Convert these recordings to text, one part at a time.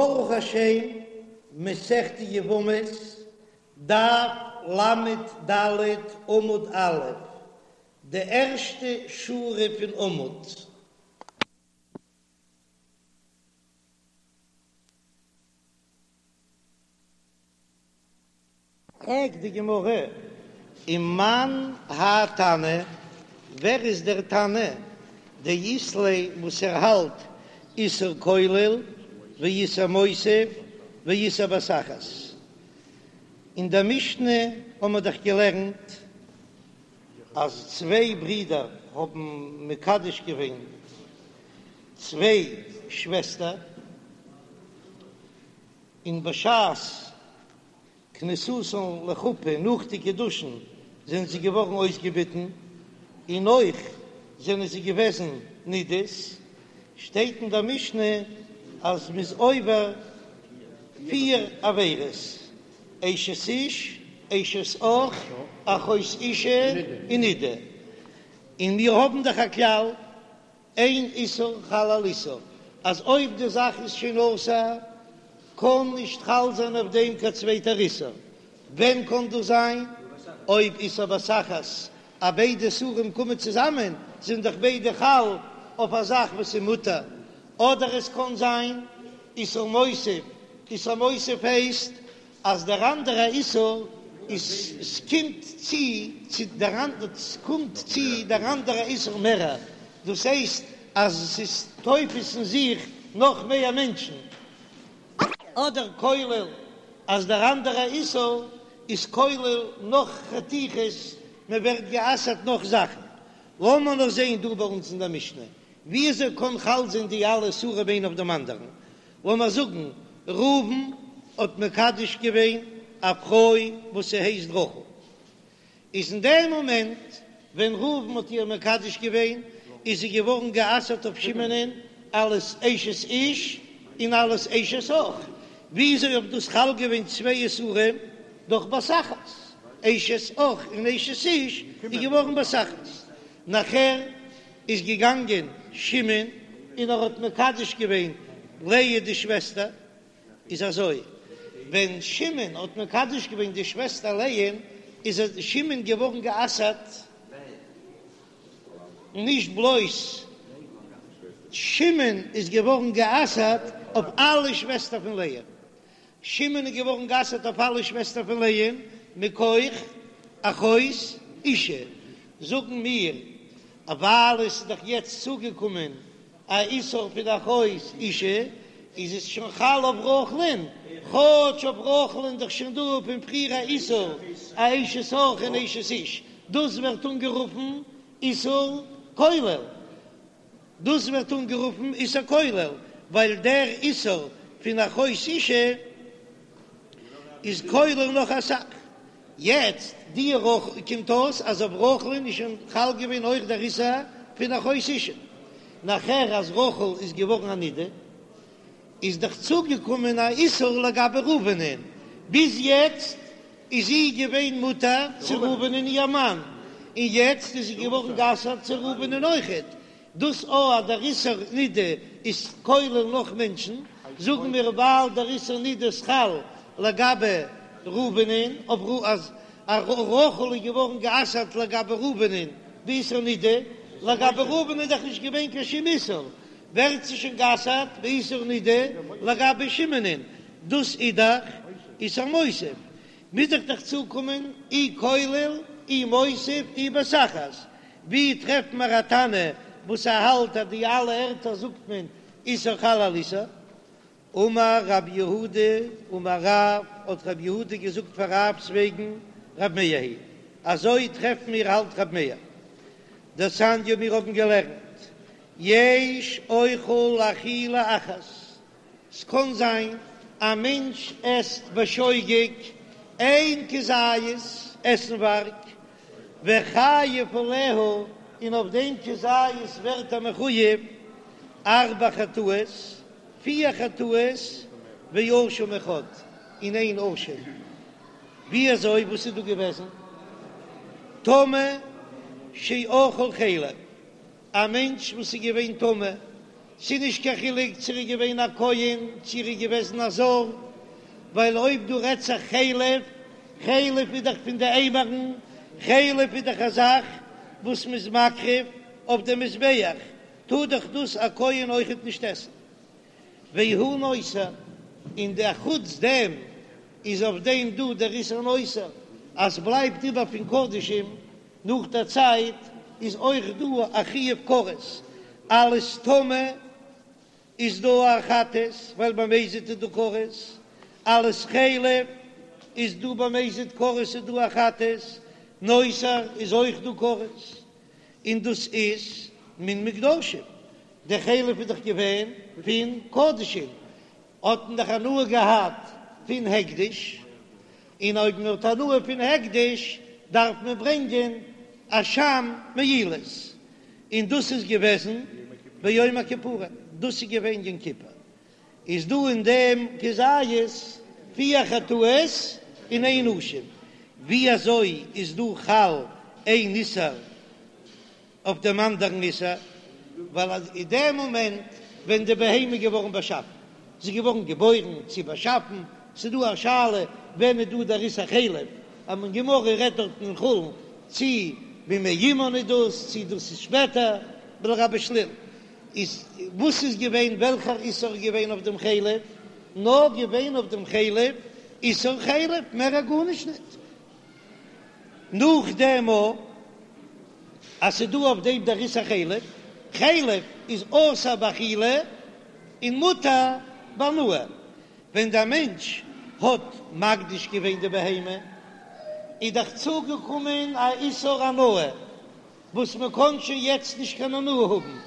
ברוך השם, מסכת יבמות, דף ל"ד עמוד א', די ערשטע שורה פון עמוד. פרעגט די גמרא, ומאן האי תנא, ווער איז דער תנא דאית ליה וואס ער האלט איסור כולל ואיסור מוסיף ואיסור בבת אחת? אין דער משנה האבן מיר דאך געלערנט אז צוויי ברידער האבן מקדש געווען צוויי שוועסטער, און בשעת כניסתן לחופה נאך די קידושין זענען זיי געווארן אויסגעביטן, און אויך זענען זיי געוועזן נידות, שטייט אין דער משנה אז מ'איז עובר פיר עבירות, אשת איש, אשת אח, אחות אשה, און נידה, און מיר האבן דאך א כלל אין איסור חל על איסור, אז אויב די זאך איז שוין אסור קען נישט חל זיין אויף דעם קיין צווייטער איסור, ווען קען דאס זיין? אויב איסור בבת אחת, אז ביידע איסורים קומען צוזאמען זענען דאך ביידע חל אויף א זאך וואס איז מותר, אדער עס קען זיין איסור מוסיף, איסור מוסיף הייסט אז דער אנדערע איסור איז ס'קומט צו צו דער ס'קומט צו דער אנדערע איסור מערער, דאס הייסט אז ס'איז תופס אין זיך נאך מער מענטשן, אדער כולל אז דער אנדערע איסור איז כולל נאך חתיכות, מען ווערט גע'אסר'ט נאך זאכן. לאמיר נאר זען דא ביי אונז אין דער משנה, וויאזוי קען חל זיין די אלע איסורים איינע אויף דעם אנדערן? לאמיר זאגן ראובן האט מקדש געווען א פרוי וואס ס'הייסט רחל, איז אין דעם מאמענט ווען ראובן האט איר מקדש געווען איז זי געווארן גע'אסר'ט אויף שמעונ'ען אלס אשת איש און אלס אשת אח, וויאזוי האט דאס חל געווען צוויי איסורים דורך בת אחת, אשת אח און אשת איש איז געווארן בבת אחת, נאכער איז געגאנגען שמעון און ער האט מקדש געווען לאה די שוועסטער, איז אזוי, ווען שמעון האט מקדש געווען די שוועסטער לאה, איז שמעון געווארן גע'אסר'ט, נישט בלויז שמעון איז געווארן גע'אסר'ט אויף אלע שוועסטער פון לאה, שמעון איז געווארן גע'אסר'ט אויף אלע שוועסטער פון לאה מכח אחות אשה, זאגן מיר אז ווייל עס איז דאך יעצט צוגעקומען א איסור פון אחות אשה, איז עס שוין חל אויף רחל'ן, כאטש אויף רחל'ן איז דאך שוין דא פון פריער א איסור א אשת אח און אשת איש, דאס ווערט אנגערופן איסור כולל. דאס ווערט אנגערופן איסור כולל, ווייל דער איסור פון אחות אשה איז כולל נאך אסאך. יעצט די רחל קומט אויס אז אויף רחל'ן איז שוין חל געווען אויך דער איסור פון אחות אשה. נאכער אז רחל איז געווארן א נידה, איז דאך צוגעקומען א איסור לגבי ראובנ'ען, ביז יעצט איז זי געווען מותר צו ראובנ'ען איר מאן, און יעצט איז זי געווארן גע'אסר'ט צו ראובנ'ען אויכעט, דאס או אז דער איסור נידה איז כולל נאך מענטשן, זאגן מיר ווייל דער איסור נידה איז חל לגבי ראובנ'ען, אויף אז רחל איז געווארן גע'אסר'ט לגבי ראובנ'ען באיסור נידה, לגבי ראובן איז דאך נישט געווען קיין שום איסור, ווערט זי שוין גע'אסר'ט באיסור נידה לגבי שמעונ'ען, דאס איז דאך איסור מוסיף, מוז איך דאך צוקומען אי כולל אי מוסיף אי בבת אחת, ווי טרעפט מיר א תנא וואס ער האלט אז די אלע ערטער זאגט מען איסור חל על איסור? אמר רב יהודה אמר רב, האט רב יהודה געזאגט פאר רב'ס וועגן רב מאיר היא, אזוי טרעפן מיר האלט רב מאיר דתניא מיר האבן געלערנט יש אוכל אכילה אחת, ס'קאן זיין א מענטש עסט בשוגג איין כזית עסנווארג וחייב עליה, און אויף דעם כזית ווערט ער מחויב ארבע חטאות, פיר חטאות ואשם אחד, און איין אשם. ווי אזוי? וואס איז דא געוועזן? טמא שאכל חלב, א מענטש וואס איז געווען טמא. ס'איז נישט קיין חילוק צו ער איז געווען א כהן צו ער איז געוועזן א זר, ווייל אויב דא רעדט זיך חלב, חלב איז דאך פון די אימורין, חלב איז דאך א זאך וואס מ'איז מקריב אויף די מזבח, טאר דאך דאס א כהן אויכעט נישט עסן. והוא נותר, און די אחוץ דעם איז אויף דעם דא דער איסור נותר, אז בלייבט איבער פון קדשים נאך דער צייט איז אויך דא א חיוב כרת, אלס טמא איז דא א חטאת ווייל במזיד איז דא כרת, אלס חלב איז דא במזיד כרת איז דא א חטאת, נותר איז אויך דא כרת, און דאס איז מן מוקדשים, די חלב איז דאך געווען פון קדשים, האט מען דאך הנאה געהאט פון הקדש, און אויב מען האט הנאה פון הקדש דארף מען ברענגען אשם מעילות, און דאס איז געוועזן ביום הכיפורים, דאס איז געווען יום כיפור, איז דא אין דעם כזית פיר חטאות און איין אשם, ווי אזוי איז דא חל איין איסור אויף דעם אנדערן איסור, ווייל אז אין דעם מאמענט ווען די בהמה איז געווארן באשאפן, זי איז געווארן געבוירן צי באשאפן, ס'איז דא א שאלה ווען איז דא דער איסור חלב, אז מען גמרא רעדט דארטן אין חולין צי במעי אמן איז דאס, צי דאס איז שפעטער, ולגבי שליל איז וואס איז געווען וועלכער איסור איז געווען אויף דעם חלב, נאר געווען אויף דעם חלב איסור חלב, מער א גארנישט ניט. נאכדעם אז ס'איז דא אויף דעם דער איסור חלב, חלב איז אסור באכילה און מותר בהנאה, ווען דער מענטש האט מקדיש געווען די בהמה איז דאך צוגעקומען א איסור הנאה וואס מען קען שוין יעצט נישט קיין הנאה האבן,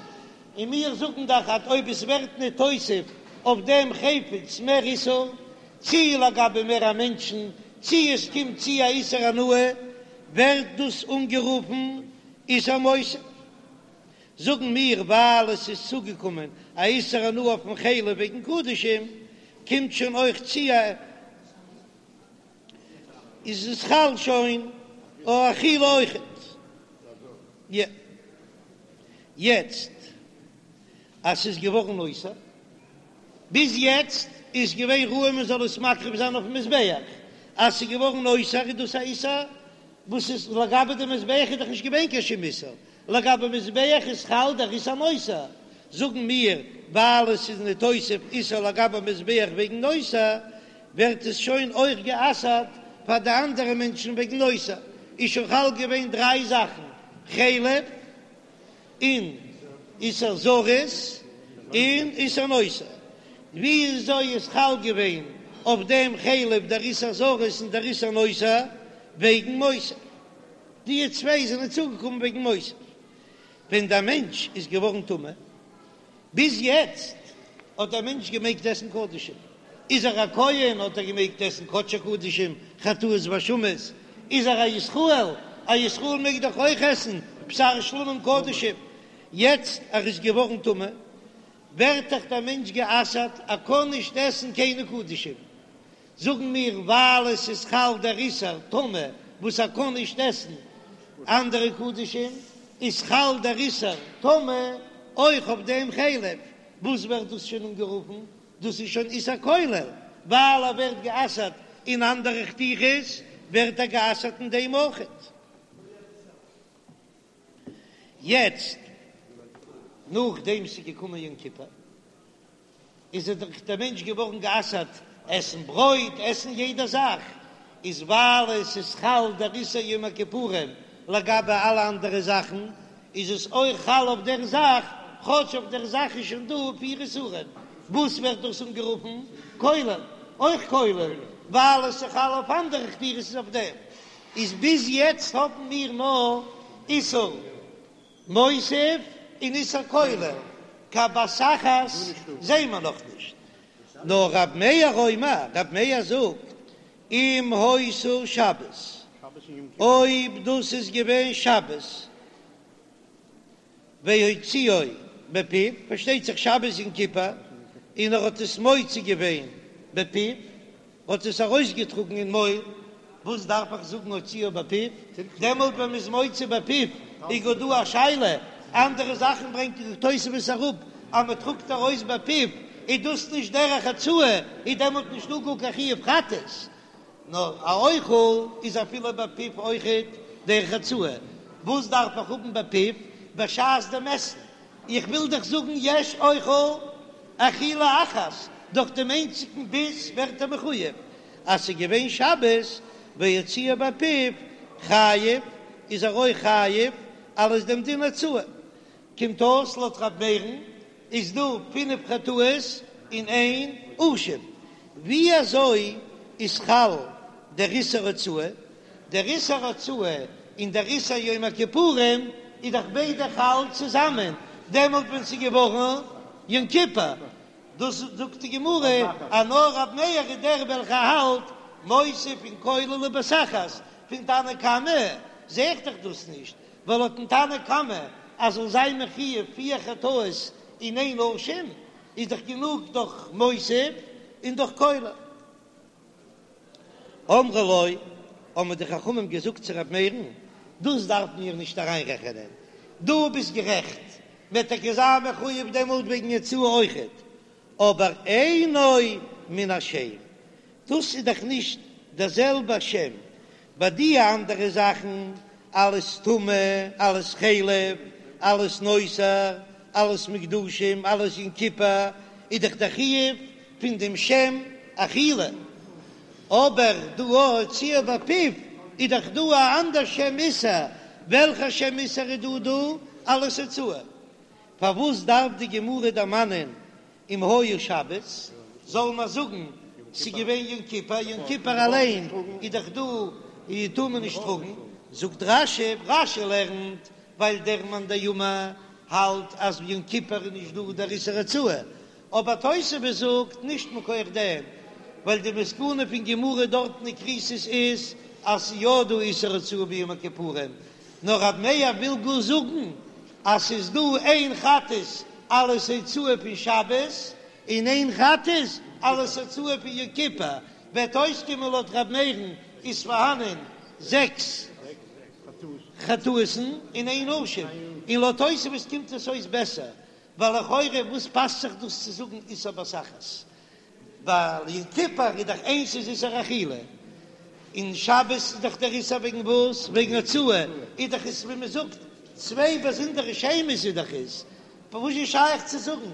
און מיר זאגן דאך אז אויב עס ווערט ניתוסף אויף דעם חפץ מער איסור, צי לגבי מער א מענטשן, צי עס קומט צו א איסור הנאה, ווערט דאס אנגערופן איסור מוסיף. זאגן מיר ווייל עס איז צוגעקומען א איסור הנאה אויפן חלב וועגן קדשים, קומט שוין אויך צו א איז עס חל שוין אויף אכילה אויכעט. יעצט אז ס'איז געווארן נותר, ביז יעצט איז געווען ראוי מען זאל עס מקריב זיין אויפן מזבח, אז ס'איז געווארן נותר איז דאס א איסור וואס איז לגבי די מזבח איז דאך נישט געווען קיין שום איסור, לגבי מזבח איז חל דער איסור נותר, זאגן מיר ווייל עס איז ניתוסף איסור לגבי מזבח וועגן נותר, ווערט עס שוין אויך גע'אסר'ט פאר די אנדערע מענטשן וועגן נותר, איז שוין חל געווען דריי זאכן, חלב, און איסור זרות, און איסור נותר. וויאזוי איז חל געווען אויף דעם חלב דער איסור זרות און דער איסור נותר? וועגן מוסיף. די צוויי זענען צוגעקומען וועגן מוסיף. ווען דער מענטש איז געווארן טמא, ביז יעצט האט דער מענטש געמעגט עסן קדשים, איז ער א כהן האט ער געמעגט עסן קדשי קדשים, חטאות ואשמות, איז ער א ישראל, א ישראל מעג דאך אויך עסן בשר שלמים קדשים, יעצט ער איז געווארן טמא, ווערט דאך דער מענטש גע'אסר'ט, ער קען נישט עסן קיינע קדשים, זאגן מיר ווייל עס איז חל דער איסור טומאה וואס ער קען נישט עסן אנדערע קדשים, איז חל דער איסור טומאה אויך אויף דעם חלב, וואס ווערט דאס שוין אנגערופן? דאס איז שוין איסור כולל, ווייל ער ווערט גע'אסר'ט אין אנדערע חתיכות, ווערט ער גע'אסר'ט אין דעם אויכעט. יעצט נאכדעם ס'איז געקומען יום כיפור. איז ער דאך דער מענטש געווארן גע'אסר'ט עסן ברויט, עסן יעדע זאך, איז ווייל עס איז חל דער איסור יום הכיפורים לגבי אלע אנדערע זאכן, איז עס אויך חל אויף דער זאך, כאטש אויף דער זאך איז שוין דא פיר איסורים, וואס ווערט דאס אנגערופן כולל? אויך כולל, ווייל עס איז חל אויף אנדערע חתיכות איז אויף דעם, איז ביז יעצט האבן מיר נאר איסור. מוסיף און איסור כולל, קיין בת אחת זעהן מיר נאך נישט. נאר רב מאיר אומר, רב מאיר זאגט, אם היתה שבת, אויב דאס איז געווען שבת, והוציאו בפיו, פארשטייט זיך שבת יום כיפור, און ער האט עס מוציא געווען בפיו, האט עס ארויסגעטראגן אין מויל, וואס דארף איך זאגן הוציאו בפיו? דעמאלט ווען מ'איז מוציא בפיו איז גאר דא א שאלה, אנדערע זאכן ברענגט די תוספות אראפ. אז מען טראגט ארויס בפיו איז דאס נישט דרך הוצאה, איז דעמאלט נישטא גאר קיין חיוב חטאת, נאר א אוכל איז אפילו בפיו אויכעט דרך הוצאה, וואס דארף איך האבן בפיו בשעת דעם עסן? איך וויל דאך זאגן יש אוכל אכילה אחת, דורך דעם איינציגן ביס ווערט ער מחויב, אז ס'איז געווען שבת והוציאה בפיו חייב, איז ער אויך חייב אלס דעם דין הוצאה. קומט אויס לויט ר' מאיר'ן איז דא פינף חטאות אין איין אשם. ווי אזוי איז חל דער איסור הוצאה? דער איסור הוצאה און דער איסור יום הכיפורים איז דאך ביידע חל צוזאמען דעמאלט ווען ס'איז געווארן יום כיפור, דאס זאגט די גמרא אז נאר רב מאיר איז דער וועלכער האלט מוסיף און כולל ובבת אחת, פון תנא קמא זע איך דאך דאס נישט, ווייל לויטן תנא קמא אז זאל זיין מחויב פיר חטאות אין איין אשם איז דאך גענוג דורך מוסיף און דורך כולל. אמרו לו, האבן די חכמים געזאגט צו ר' מאיר'ן, דאס דארף מיר נישט אריינרעכענען, דו ביסט גערעכט, מ'וועט טאקע זיין מחויב דעמאלט וועגן הוצאה אויכעט, אבער אינו מן השם, דאס איז דאך נישט דער זעלבער שם, ביי די אנדערע זאכן, אלעס טומאה, אלעס חלב, אלעס נותר, אלעס מוקדשים, אלעס יום כיפור, איז דאך דער חיוב פון דעם שם אכילה, אבער דא הוציאה בפיו איז דאך דא א אנדער שם איסור, וועלכע שם איסור איז דא דא? אלעס הוצאה. פארוואס דארף די גמרא דערמאנען אם היה שבת, זאל מען זאגן ס'איז געווען יום כיפור, יום כיפור אליין איז דאך דא און טאר מען נישט טראגן, זאגט רש"י, רש"י לערנט ווייל דער מאן דאמר האלט אז יום כיפור איז נישט דא דער איסור הוצאה, אבער תוספות זאגט נישט מכח דעם, ווייל די מסקנא פון גמרא דארטן אין כריתות איז אז ס'איז יא דא איסור הוצאה ביום הכיפורים, נאר רב מאיר וויל גאר זאגן אז ס'איז דא איין חטאת אלס הוצאה פון שבת און איין חטאת אלס הוצאה פון יום כיפור, וועט אויסקומען לויט ר' מאיר'ן איז פארהאנען זעקס חטאות'ן אין איין אשם, און לויט תוספות קומט עס אויס בעסער, ווייל לכאורה וואס פאסט זיך דאס צו זאגן איסור בבת אחת? ווייל יום כיפור איז דאך איינס איז איסור אכילה, און שבת איז דאך דער איסור וועגן וואס? וועגן הוצאה, איז דאך עס ווי מען זאגט צוויי באזונדערע שמות איז דאך עס, וואס איז שייך צו זאגן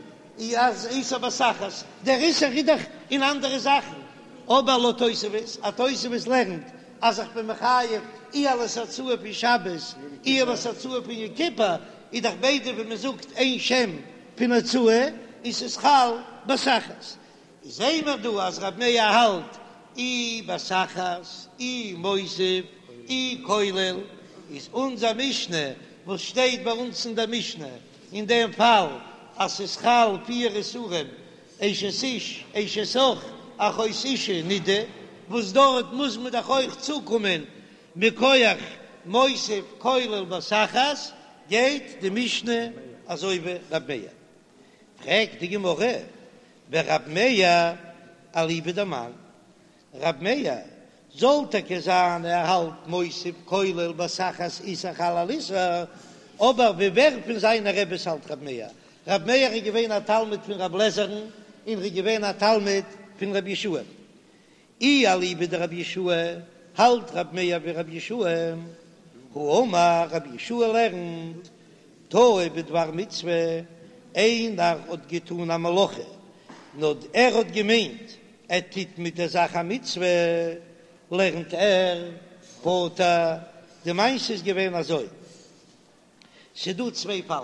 אז איסור בבת אחת, דער איסור איז דאך אין אנדערע זאכן, אבער לויט תוספות, אז תוספות לערנט אז איך בין מחויב אי אלס הוצאה פון שבת אי אלס הוצאה פון יום כיפור, איז דאך ביידע ווי מען זאגט איין שם פון הוצאה און ס'איז חל בבת אחת. זעהן מיר דא אז רב מאיר האלט אי בבת אחת אי מוסיף אי כולל, איז אונזער משנה וואס שטייט ביי אונז אין דער משנה אין דעם פאל אז ס'איז חל פיר איסורים אשת איש אשת אח אחות אשה נידה, וואס דארט מוז מען דאך אויך צוקומען מכח מוסיף כולל בבת אחת, גייט די משנה אזוי ווי רב מאיר. פרעגט די גמרא, ורב מאיר אליבא דמאן? רב מאיר זאל טאקע זיין ער האלט מוסיף כולל בבת אחת איסור חל על איסור, אבער ווי ווער פון זיינע רעבעס האלט רב מאיר? רב מאיר איז געווען א תלמיד פון רב לעזער'ן און ר'איז געווען א תלמיד פון רב יהושע. אי אליבא דרבי יהושע האלט רב מאיר ווי רבי יהושע, האמר רבי יהושע לערנט טעה בדבר מצוה, איינער האט געטון א מלאכה נאר ער האט געמיינט ער טוט מיט דער זאך א מצוה, לערנט ער פטור, די מעשה איז געווען אזוי, ס'דא צוויי פאלן,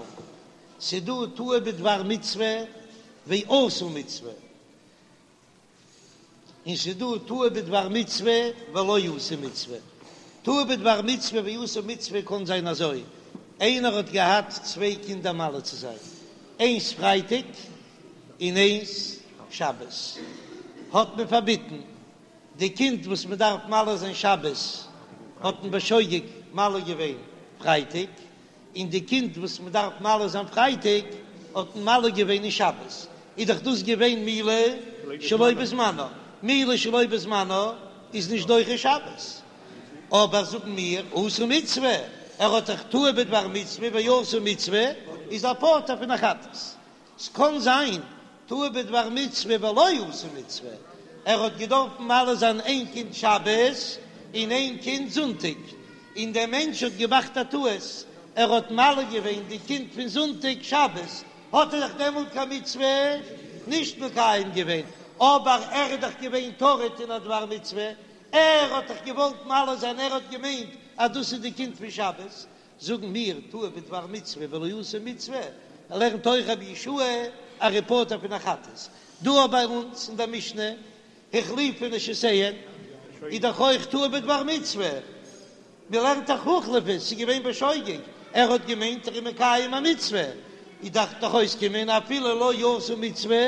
ס'דא טעה בדבר מצוה ועשה מצוה, און ס'איז דא טעה בדבר מצוה ולא עשה מצוה. טעה בדבר מצוה ועשה מצוה קען זיין אזוי, איינער האט געהאט צוויי קינדער מל צו זיין, איינס פרייטאג און איינס שבת, האט מען פארביטן, די קינד וואס מען דארף מל זיין שבת האט מען בשוגג מל געווען פרייטאג, און די קינד וואס מען דארף מל זיין פרייטאג האט מען מל געווען אין שבת, איז דאך דאס געווען מילה שלא בזמנה, מילה שלא בזמנה איז נישט דוחה שבת, אבער זאגן מיר עשה מצוה, ער האט דאך טעה בדבר מצוה ועשה מצוה, איז ער פטור פון א חטאת. ס'קאן זיין טעה בדבר מצוה ולא עשה מצוה, ער האט געדארפן מל זיין איין קינד שבת און איין קינד זונטאג, און דער מענטש האט געמאכט א טעות, ער האט מל געווען די קינד פון זונטאג שבת, האט ער דאך דעמאלט קיין מצוה נישט מקיים געווען, אבער ער איז דאך געווען טרוד אין א דבר מצוה, ער האט דאך געוואלט מל זיין, ער האט געמיינט אז דאס איז די קינד פון שבת, זאגן מיר טעה בדבר מצוה ולא עשה מצוה, לערנט אויך רבי יהושע אז ער איז פטור פון א חטאת. דא ביי אונז אין דער משנה החליפו נשותיהן איז דאך אויך טעה בדבר מצוה, מען לערנט דאך הוחלפו, ס'איז געווען בשוגג, ער האט געמיינט ער איז מקיים א מצוה, איז דארף דאך אויסקומען אפילו לא עשה מצוה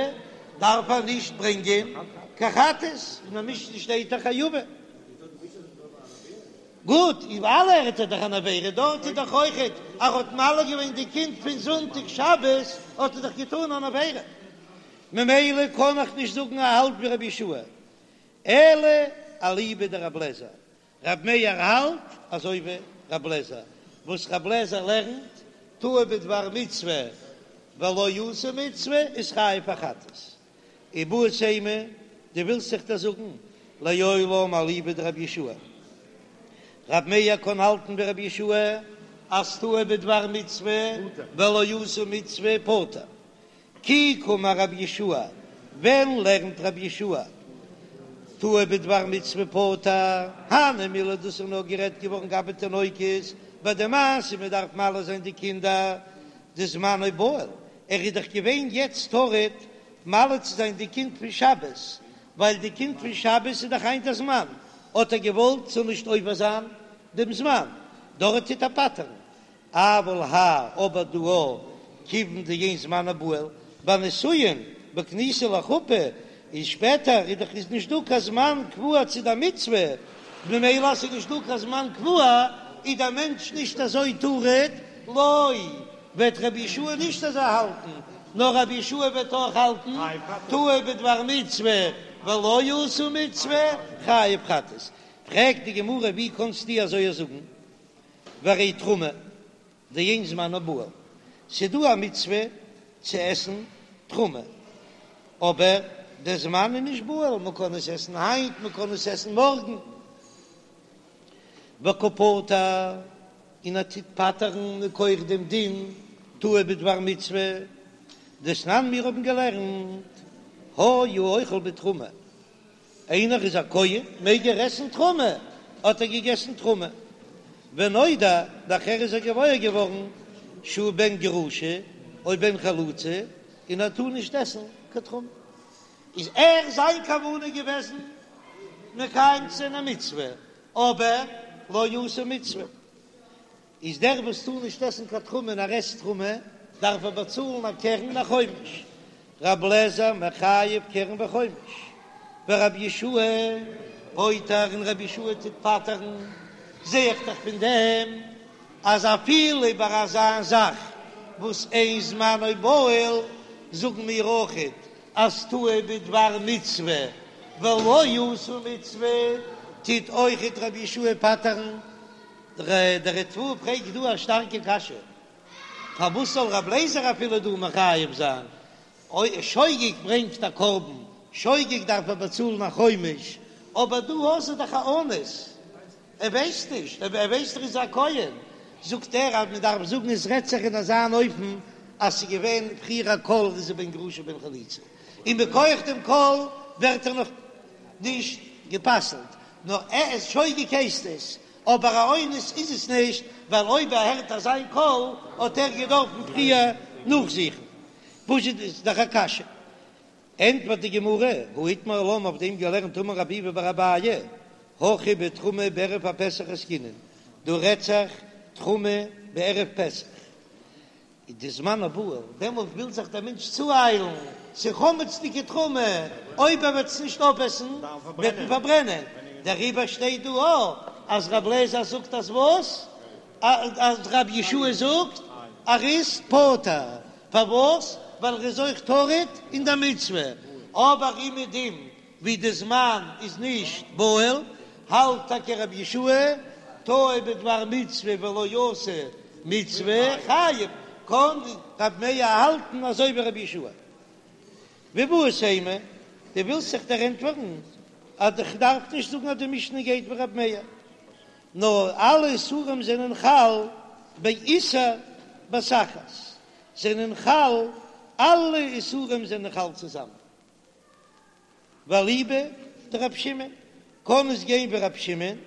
דארף ער נישט ברענגען קיין חטאת, אין דער משנה שטייט דאך חייבין. גוט, איבעראל ער טוט דאך אן עבירה, דארט איז דאך אויכעט אז ער האט מל געווען די קינד פון זונטאג שבת האט ער דאך געטאן אן עבירה, ממילא קען איך נישט זאגן ער האלט ווי רבי יהושע אלא אליבא דרבי אליעזר, רבי מאיר האלט אזוי ווי רבי אליעזר, וואס רבי אליעזר לערנט טעה בדבר מצוה ולא עשה מצוה איז חייב א חטאת. איבעית אימא, דו ווילסט זיך דאס זאגן, לעולם אליבא דרבי יהושע. רבי מאיר קען האלטן ווי רבי יהושע אז טעה בדבר מצוה ולא עשה מצוה פטור. כי קאמר רבי יהושע, ווען לערנט רבי יהושע טעה בדבר מצוה פטור? הני מילי דאס איז נאר גערעדט געווארן גבי תינוקות, ביי די מעשה מען דארף מל זיין די קינדער דזמנו בהול, ער איז דאך געווען יעצט טרוד מל צו זיין די קינד פון שבת, ווייל די קינד פון שבת איז דאך היינט א זמן, האט ער געוואלט ס'זאל נישט עובר זיין דעם זמן, דארט טוט ער פטר'ן, אבל האי אבער דא כיוון דאין זמנו בהול, ביי נישואין בכניסה לחופה איז שפעטער איז דאך איז נישט דא קיין זמן קבוע צו די מצוה, ממילא אז ס'איז נישט דא קיין זמן קבוע איז דער מענטש נישט אזוי טרוד, לא וועט רבי יהושע נישט אזוי האלטן, נאר רבי יהושע וועט אויך האלטן טעה בדבר מצוה ולא עשה מצוה חייב חטאת. פרעגט די גמרא ווי קאנסטו אזוי זאגן והרי תרומה דאין זמנה בהול, ס'דא א מצוה צו עסן תרומה, אבער דער זמן איז נישט בהול, מ'קען עס עסן היינט, מ'קען עס עסן מארגן. וקא פטר, און ער טוט פטר'ן מכח דעם דין טעה בדבר מצוה, דתנן מיר האבן געלערנט, היה אוכל בתרומה, איינער איז א כהן מעג ער עסן תרומה, האט ער געגעסן תרומה, ונודע, נאכער איז ער געוואויר געווארן שהוא בן גרושה או בן חלוצה, און ער טאר נישט עסן קיין תרומה. איז ער זיין כוונה געוועזן מקיים צו זיין א מצוה, אבער לא עשה מצוה, איז דער וואס טאר נישט עסן קיין תרומה און ער עסט תרומה, דארף ער באצאלן א קרן און א חומש, רב לעזער מחייב קרן וחומש, ורבי יהושע פוטר און רבי יהושע טוט פטר'ן, זע איך דאך פון דעם אז אפילו ביי אזא זאך וואס אין זמנו בהול זאגן מיר אויכעט אז טעה בדבר מצוה ולא עשה מצוה טוט אויכעט רבי יהושע פטר'ן. דער ריטב"א פרעגט דא א שטארקע קשיא, פארוואס זאל רב לעזער אפילו דא מחייב זיין? אויב שוגג ברענגט א קרבן, שוגג דארף ער באצאלן א חומש, אבער דא האסטו דאך א אונס, ער ווייסט נישט, ער ווייסט ער איז א כהן, זאגט ער אז מען דארף זאגן עס רעדט זיך אין אזא אן אופן אז ס'איז געווען פריער א קול איז ער בן גרושה בן חלוצה, און מכח דעם קול ווערט ער נאך נישט גע'פסל'ט, נאר ער איז שוגג הייסט עס, אבער א אונס איז עס נישט, ווייל אויב ער הערט אזא קול האט ער געדארפן פריער נאכזוכן. פשוט איז דאך א קשיא. ענטפערט די גמרא, הא איתמר עלה אויף דעם געלערנט אמר רב ביבי בר אביי, הכא בתרומה בערב הפסח עסקינן, דא רעדט זיך תרומה בערב פסח, איז דזמנה בהול, דעמאלט וויל זיך דער מענטש צואיילן, ס'איז חמצ'דיגע תרומה, אויב ער וועט עס נישט אויפעסן וועט מען פארברענען, דעריבער שטייט דא אויך אז רב לעזער זאגט אז וואס? אז רבי יהושע זאגט ער איז פטור, פארוואס? ווייל ער איז אויך טרוד אין די מצוה, אבער אומעדום ווי די זמן איז נישט בהול, האלט טאקע רבי יהושע טעה בדבר מצוה ולא עשה מצוה חייב. קען רב מאיר האלטן אזוי ווי רבי יהושע. ואיבעית אימא, דו ווילסט זיך דערענטפערן אז איך דארף נישט זאגן אז די משנה גייט ווי רבי מאיר, נאר אלע איסורים זענען חל באיסור בת אחת, זענען חל, אלע איסורים זענען חל צוזאמען. ואליבא דרב שמעון, קען עס גיין ווי רב שמעון,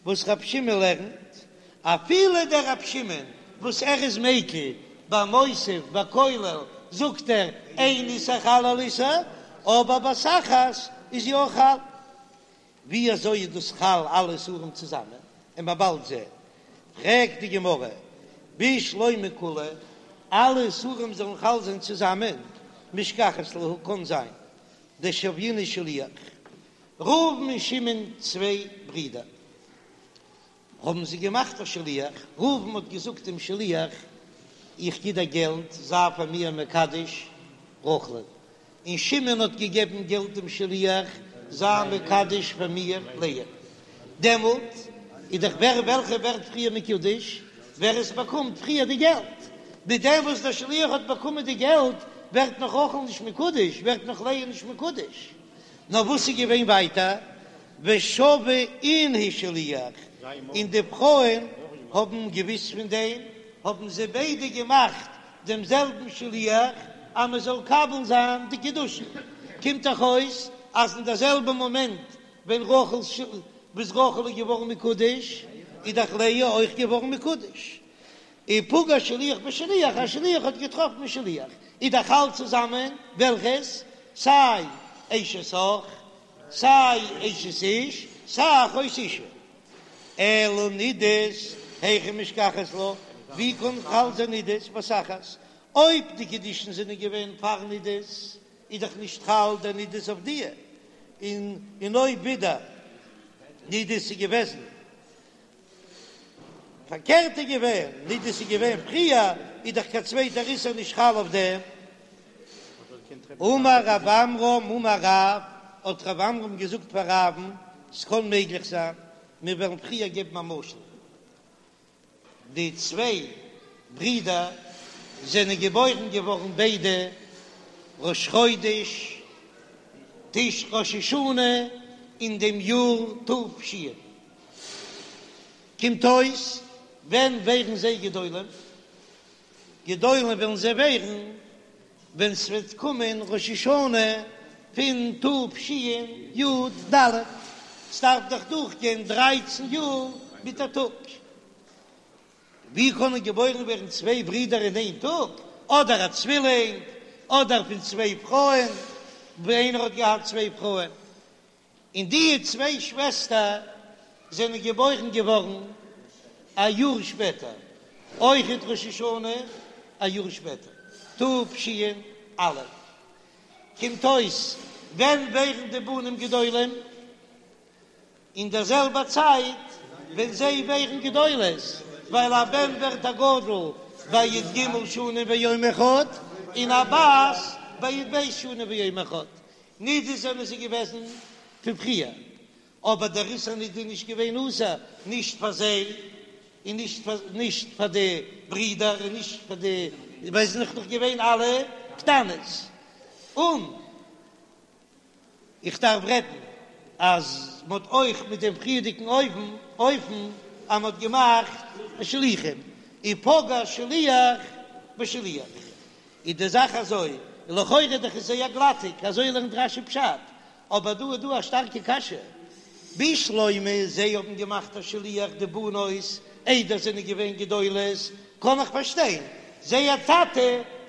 וואס רב שמעון לערנט, אפילו דער רב שמעון וואס ער איז מיקל ביי מוסיף ביי כולל זאגט ער אין איסור חל על איסור, אבער בת אחת איז יא חל. ווי אזוי איז דאס חל אלע איסורים צוזאמען? און מ'עט באלד זען. פרעגט די גמרא, בשלמא כולהו, אלע איסורים זאלן חל זיין צוזאמען, משכחת להו קאן זיין דשוינהו שליח, ראובן און שמעון צוויי ברידער, האבן זיי געמאכט א שליח, ראובן האט געזאגט דעם שליח, איך גיב דיר געלט, זיי פאר מיר מקדש רחל'ן, און שמעון האט געגעבן געלט דעם שליח, זיי מקדש פאר מיר לאה. דעמאלט איז דאך ווער וועלכע ווערט פריער מקודש, ווער עס באקומט פריער די געלט. מיט דעם וואס דער שליח האט באקומען די געלט, ווערט נאך רחל נישט מקודש, ווערט נאך לאה נישט מקודש. נאר וואס איז געווען ווייטער? ושוו אינהו שליח, און די פרויען האבן געוויסט פון דעם, האבן זיי ביידע געמאכט דעם זעלבן שליח אז מען זאל מקבל זיין די קידושין, קומט דאך אויס אז אין דער זעלבע מאמענט ווען רחל וואס רחל איז געווארן מקודש, איז דאך לאה אויך געווארן מקודש. ופגע שליח בשליח, א שליח האט געטראפן א שליח, איז דאך חל צוזאמען, וועלכעס? סיי אשת אח, סיי אשת איש, סיי אחות אשה. אלא נדות, היכי משכחת לה, ווי קען חל זיין נדות בבת אחת? אויב די קידושין זענען געווען פאר נדות, איז דאך נישט חל דער נדות אויף דיע, און און אויב ווידער נדות איז געוועזן פארקערט איז געווען, נדות איז געווען פריער, איז דאך קיין צווייטער איסור נישט חל אויף דעם. אמר רב עמרם אמר רב, האט רב עמרם געזאגט פאר רב'ן, ס'קען מעגליך זיין, מיר וועלן פריער געבן א משל, די צוויי ברידער זענען געבוירן געווארן ביידע ראש חודש תש ראש השנה אין דעם יאר ת"ש, קומט אויס ווען ווערן זיי גדולים? גדולים וועלן זיי ווערן ווען ס'וועט קומען ראש השנה פון תשי"ד, ס'דארף דאך דורכגיין דרייצן יאר מיט א טאג, ווי קענען געבוירן ווערן צוויי ברידער אין איין טאג, אדער א צווילינג, אדער פון צוויי פרויען, ווי איינער האט געהאט צוויי פרויען. און די צוויי שוועסטער זענען געבוירן געווארן א יאר שפעטער, אויכעט ראש השנה א יאר שפעטער, תש"א. קומט אויס ווען ווערן די בנים גדולים? אין דער זעלבער צייט ווען זיי ווערן גדולות, ווייל א בן ווערט א גדול ביי י"ג שנים ויום אחד, און א בת ביי י"ב שנים ויום אחד, נידות זענען זיי געוועזן פון פריער, אבער דער איסור נידה איז נישט געווען אסור נישט פאר זיי און נישט פאר נישט פאר די ברידער און נישט פאר די ווייל זיי זענען נאך געווען אלע קטנות. און איך דארף רעדן אז מען האט אויך מיט דעם פריערדיגן אופן אופן אז מען האט געמאכט שליחים ופגע שליח בשליח. איז די זאך אזוי, לכאורה דאך איז זייער גלאטיג, אזוי לערנט רש"י פשט, אבער דא איז דא א שטארקע קשיא, בשלמא זיי האבן געמאכט א שליח די בנות איידער זענען געווען גדולות, קען איך פארשטיין, זייער טאטע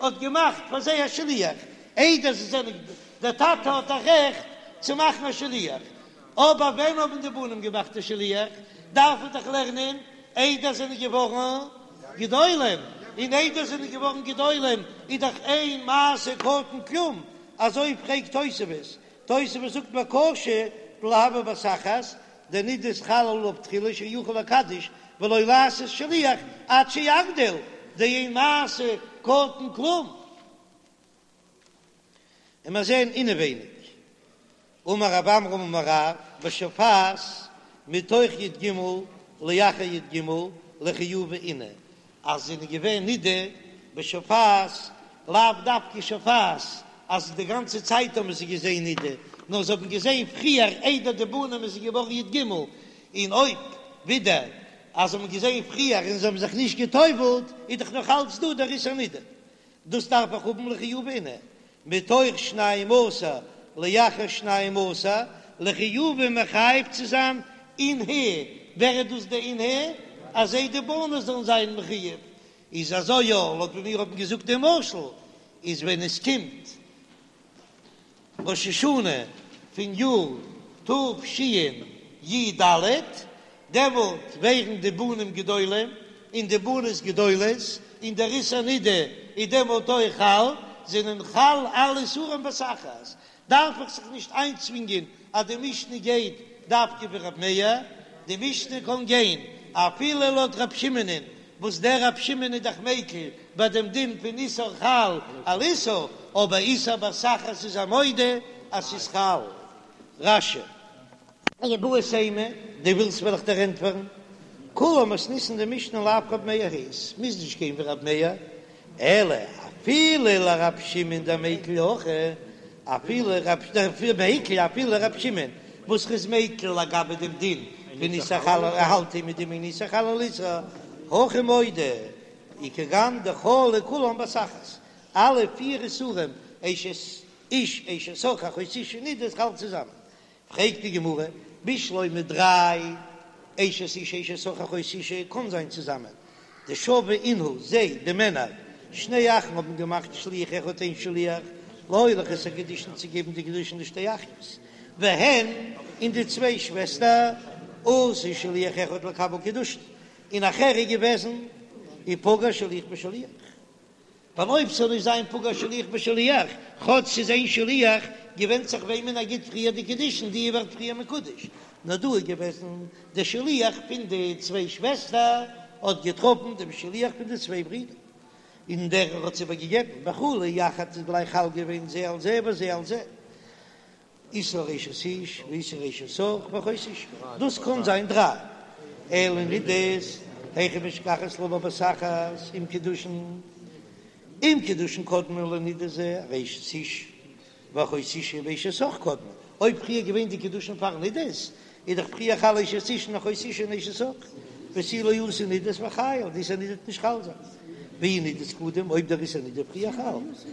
האט געמאכט פאר זיי א שליח איידער זיי זענען, דער טאטע האט א רעכט צו מאכן א שליח, אבער ווען האבן די בנים געמאכט א שליח, דארף מען דאך לערנען איידער זענען געווארן גדולים, און איידער זענען געווארן גדולים איז דאך אין מעשה קטן כלום, אזוי פרעגט תוספות, תוספות זאגט וקשה דלא הוה בת אחת, דנדות חל עליו תחילה שיכול לקדש ולא לעשות שליח עד שיגדיל, דאין מעשה קטן כלום. און מיר זעען אינעווייניג, אמר רב עמרם אמר רב, בשופעת מתוך י"ג לאחר י"ג לחיובא אינהו, אז זענען געווען נידה. בשופעת, לאו דווקא שופעת אז די גאנצע צייט האבן זיי געזען נידה, נאר זיי האבן געזען פריער איידער די בנים איז געווארן י ג, און אויב ווידער אז זיי האבן געזען פריער און זיי האבן זיך נישט גע'טובל'ט איז דאך נאך אלץ דא דער איסור נידה. דאס דארף איך האבן לחיובי אינהו, מתוך שנים עשר לאחר שנים עשר, לחיובי מחייב צו זיין אינהו, ווער איז דאס די אינהו? אז זיי די בנות זאלן זיין מחויב, איז אזוי יא, לויט ווי מיר האבן געזאגט דעם משל, איז ווען עס קומט ראש השנה פון יאר תשי ד, דעמאלט ווערן די בנים גדולים און די בנות גדולות, און דער איסור נידה איז דעמאלט אויך חל, זענען חל אלע איסורים בבת אחת, דארף איך זיך נישט איינצווינגען אז די משנה גייט דווקא ווי רב מאיר, די משנה קען גיין אפילו לויט רב שמעונ'ען, וואס דער רב שמעון איז דאך מיקל ביי דעם דין פון איסור חל על איסור, אבער איסור בת אחת איז ער מודה אז ס'איז חל. רש"י. איבעית אימא, דו ווילסט וועל איך דיר ענטפערן, כולה מתניתין די משנה לאו רב מאיר היא, ס'מוז נישט גיין ווי רב מאיר, אלא אפילו לרב שמעון דמיקל הכא, אפילו רב מיקל אפילו רב שמעון וואס איז מיקל לגבי דעם דין פון איסור חל ער האלט מיט דעם אין איסור חל על איסור, הכי מודה וכגון דחלו כולן בבת אחת, אלע פיר איסורים אשת איש אשת אח אחות אשה נידה איז חל צוזאמען, פרעגט די גמרא, בשלמא דריי אשת איש אשת אח אחות אשה קאן זיין צוזאמען, דשוו אינהו זיי, די מענער, שני אחים האבן געמאכט שליח אחד איין שליח, להוליך את הקידושין צו געבן די קידושין לשתי אחיות, והן, און די צוויי שוועסטער, עשו שליח אחד לקבל קידושין, און נאכער איז געוועזן, ופגע שליח בשליח. ווייל אויב ס'זאל נישט זיין פגע שליח בשליח, כאטש ס'איז איין שליח, געווענדט זיך וועמען ער גיט פריער די קידושין, די ווערט פריער מקודש. נאר דא איז געוועזן, דער שליח פון די צוויי שוועסטער האט געטראפן דעם שליח פון די צוויי ברידער, און דער האט עס איבערגעגעבן, וחלו יחד איז גלייך חל געווען זה על זה וזה על זה. איסור אשת איש ואיסור אשת אח ואחות אשה, דאס קען זיין דריי, אלא נידות, היכי משכחת לה בבת אחת עם קידושין, אם קידושין קדמו לנידה זה הרי אשת איש ואחות אשה ואשת אח קודמין, אויב פריער געווען די קידושין פאר נידות, איז דאך פריער חל אשת איש און אחות אשה און אשת אח, ותו לא אתי נידות וחיילא, די איסור נידה וועט נישט חל זיין, ואי נידות קדם, אויב דער איסור נידה פריער חל.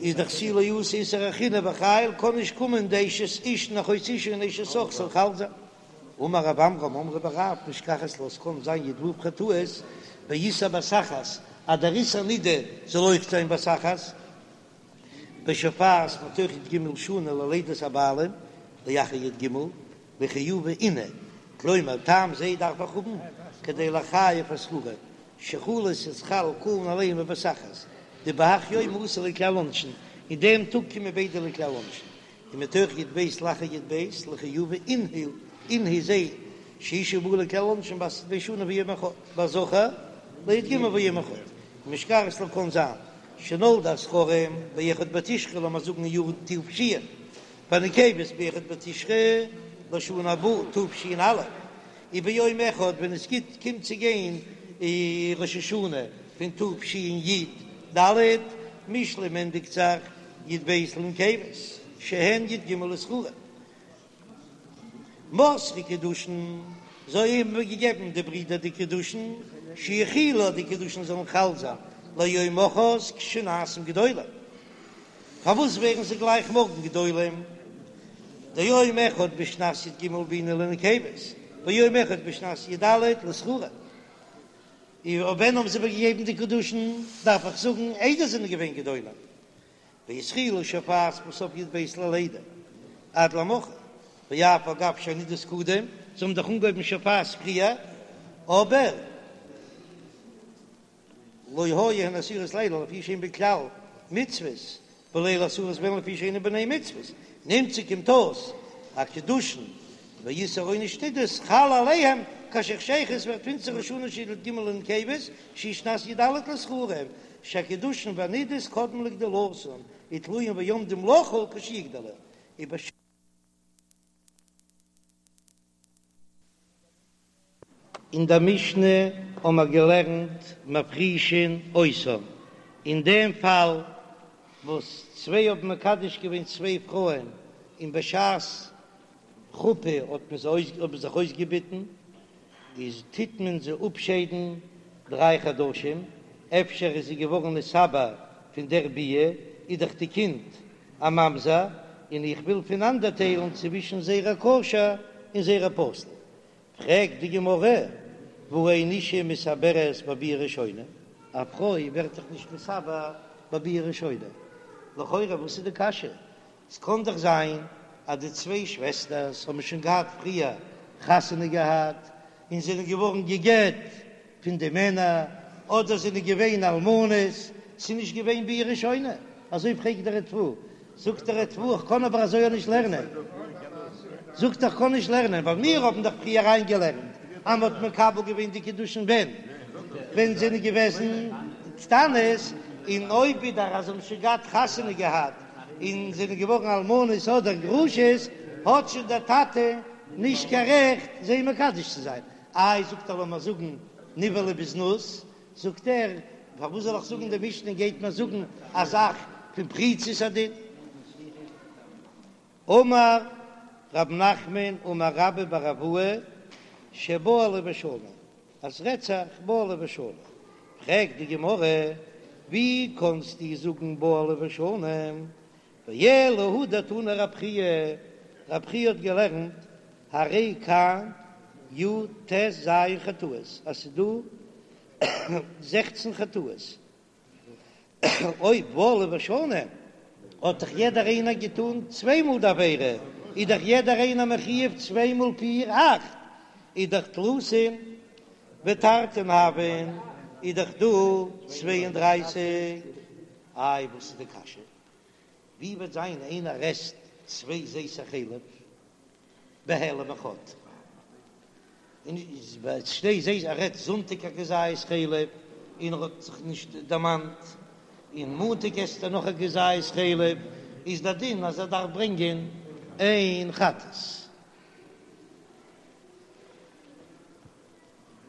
איז דאך תו לא אתי איסור אחרינא וחייל קען נישט קומען די אשת איש און אחות אשה און אשת אח זאל חל זיין. אמר רב עמרם אמרי בי רב משכחת לה ס'קען זיין י ו חטאות באיסור בת אחת אז דער איסור נידה זאל אויך זיין בבת אחת בשופעת מתוך י ג שנה ללידת הבעלים לאחר י ג לחיובי אינהו כלומר טעם זה דארף איך האבן כדי לחייב הזכרים שחלות ס'איז חל כולן עליהם בבת אחת, דבהך יומא אתו לכלל עונשין, אין דעם טאג קומען ביידע לכלל עונשין, ומתוך י ב לאחר י ב לחיובי אינהו אינהו זיי שאשה באה לכלל עונשין בת י ב שנה ויום אחד, והזכר לי ג ויום אחד, ומשכחת לה קאן זיין שנולדו הזכרים באחד בתשרי לאמיר זאגן אין יאר תש, והנקבות באחד בתשרי לשנה הבאה תש"א. וביום אחד ווען עס גיט קומט צו גיין ראש השנה פון תשי ד, משלים ענדיגט זיך י ב לנקבות שהן י ג לזכרים מסרו קידושין, זיי האבן געגעבן די ברידער די קידושין שיחולו די קידושין זאלן חל זיין ליום מחרת כשנעשים גדולים. פארוואס ווערן זיי גלייך מארגן גדולים? דיום אחד בשנת י ג בעינן לנקבות, ויום אחד בשנת י ד לזכרים. און ווען האבן זיי איבערגעגעבן די קידושין? דארף איך זאגן איידער זענען געווען גדולים. והתחילו שופעת בסוף י ב ללידה עד למחר, ואף על גב שהנידות קדם, זיי האבן דאך אנגעהויבן שופעת פריער, אבער. לא היו הן אסורות לאלו לפי שאין בכלל מצוות, ולא אסורות בהן לפי שאינן בני מצוות, נמצא קומט אויס אז קידושין ואיסור עונש נידות חל עליהם כאשר חשכה ווערט פינסטער ראש השנה של י ג לנקבות שהיא שנת י ד לזכרים שהקידושין והנידות קודמים לגדולתן ותלויים ועומדים לחול כשיגדלו. אין דער משנה האבן מיר געלערנט מפרישין אותן. אין דעם פאל וואס צוויי האבן מקדש געווען צוויי פרויען און בשעת חופה האט מען זיי אויס האבן זיך אויסגעביטן, איז טוט מען זיי אפשיידן דריי חדשים, אפשר איז זי געווארן נתעבר פון דער ביאה, איז דאך די קינד א ממזר, און איך וויל פונאנדערטיילן צווישן זרע כשר און זרע פסול. פרעגט די גמרא, והא אין אשה מתעברת בביאה ראשונה, א פרוי ווערט דאך נישט נתעבר בביאה ראשונה, לכאורה וואס איז די קשיא? ס'קען דאך זיין אז די צוויי שוועסטערס האבן שוין געהאט פריער חתונה געהאט און זענען געווארן גע'גט פון די מענער, אדער זענען געווען אלמנות, ס'איז נישט געווען ביאה ראשונה, אזוי פרעגט דער ריטב"א, זאגט דער ריטב"א איך קען אבער אזוי אויך נישט לערנען, זאגט ער איך קען נישט לערנען ווייל מיר האבן דאך פריער אריינגעלערנט אז מ'האט מקבל געווען די קידושין ווען ווען זענען געוועזן קטנות, און אויב ווידער אז זיי האבן שוין געהאט חתונה געהאט און זענען געווארן אלמנות אדער גרושות, האט שוין דער טאטע נישט קיין רעכט זיי מקדש צו זיין. איי זאגט ער לאמיר זאגן נבעלה בזנות, זאגט ער פארוואס זאל איך זאגן די משנה גייט מיר זאגן א זאך פון פריצות הדין. אמר רב נחמן אמר רבה בר אבוה שבעלה ושנה, אז ס'רעדט זיך בעלה ושנה, פרעגט די גמרא ווי קאנסטו זאגן בעלה ושנה, ואלא הא דתני רב חייא, רב חייא האט געלערנט הרי כאן י"ט ז חטאות, אז ס'איז דא זעכצן חטאות, אויב בעלה ושנה האט דאך יעדער איינער געטון צוויי מאל די עבירה, איז דאך יעדער איינער מחיוב צוויי מאל פיר אכט, איז דאך תלתין ותרתין הויין, איז דאך דא צוויי און דרייסיג. איי וואס איז די קשיא? ווי וועט זיין איינער עסט צוויי זיתי חלב בהעלם אחד, און שני זיתי ער עסט זונטאג א כזית חלב און ער האט זיך נישט דערמאנט, און מאנטאג עסט ער נאך א כזית חלב, איז דער דין אז ער דארף ברענגען איין חטאת.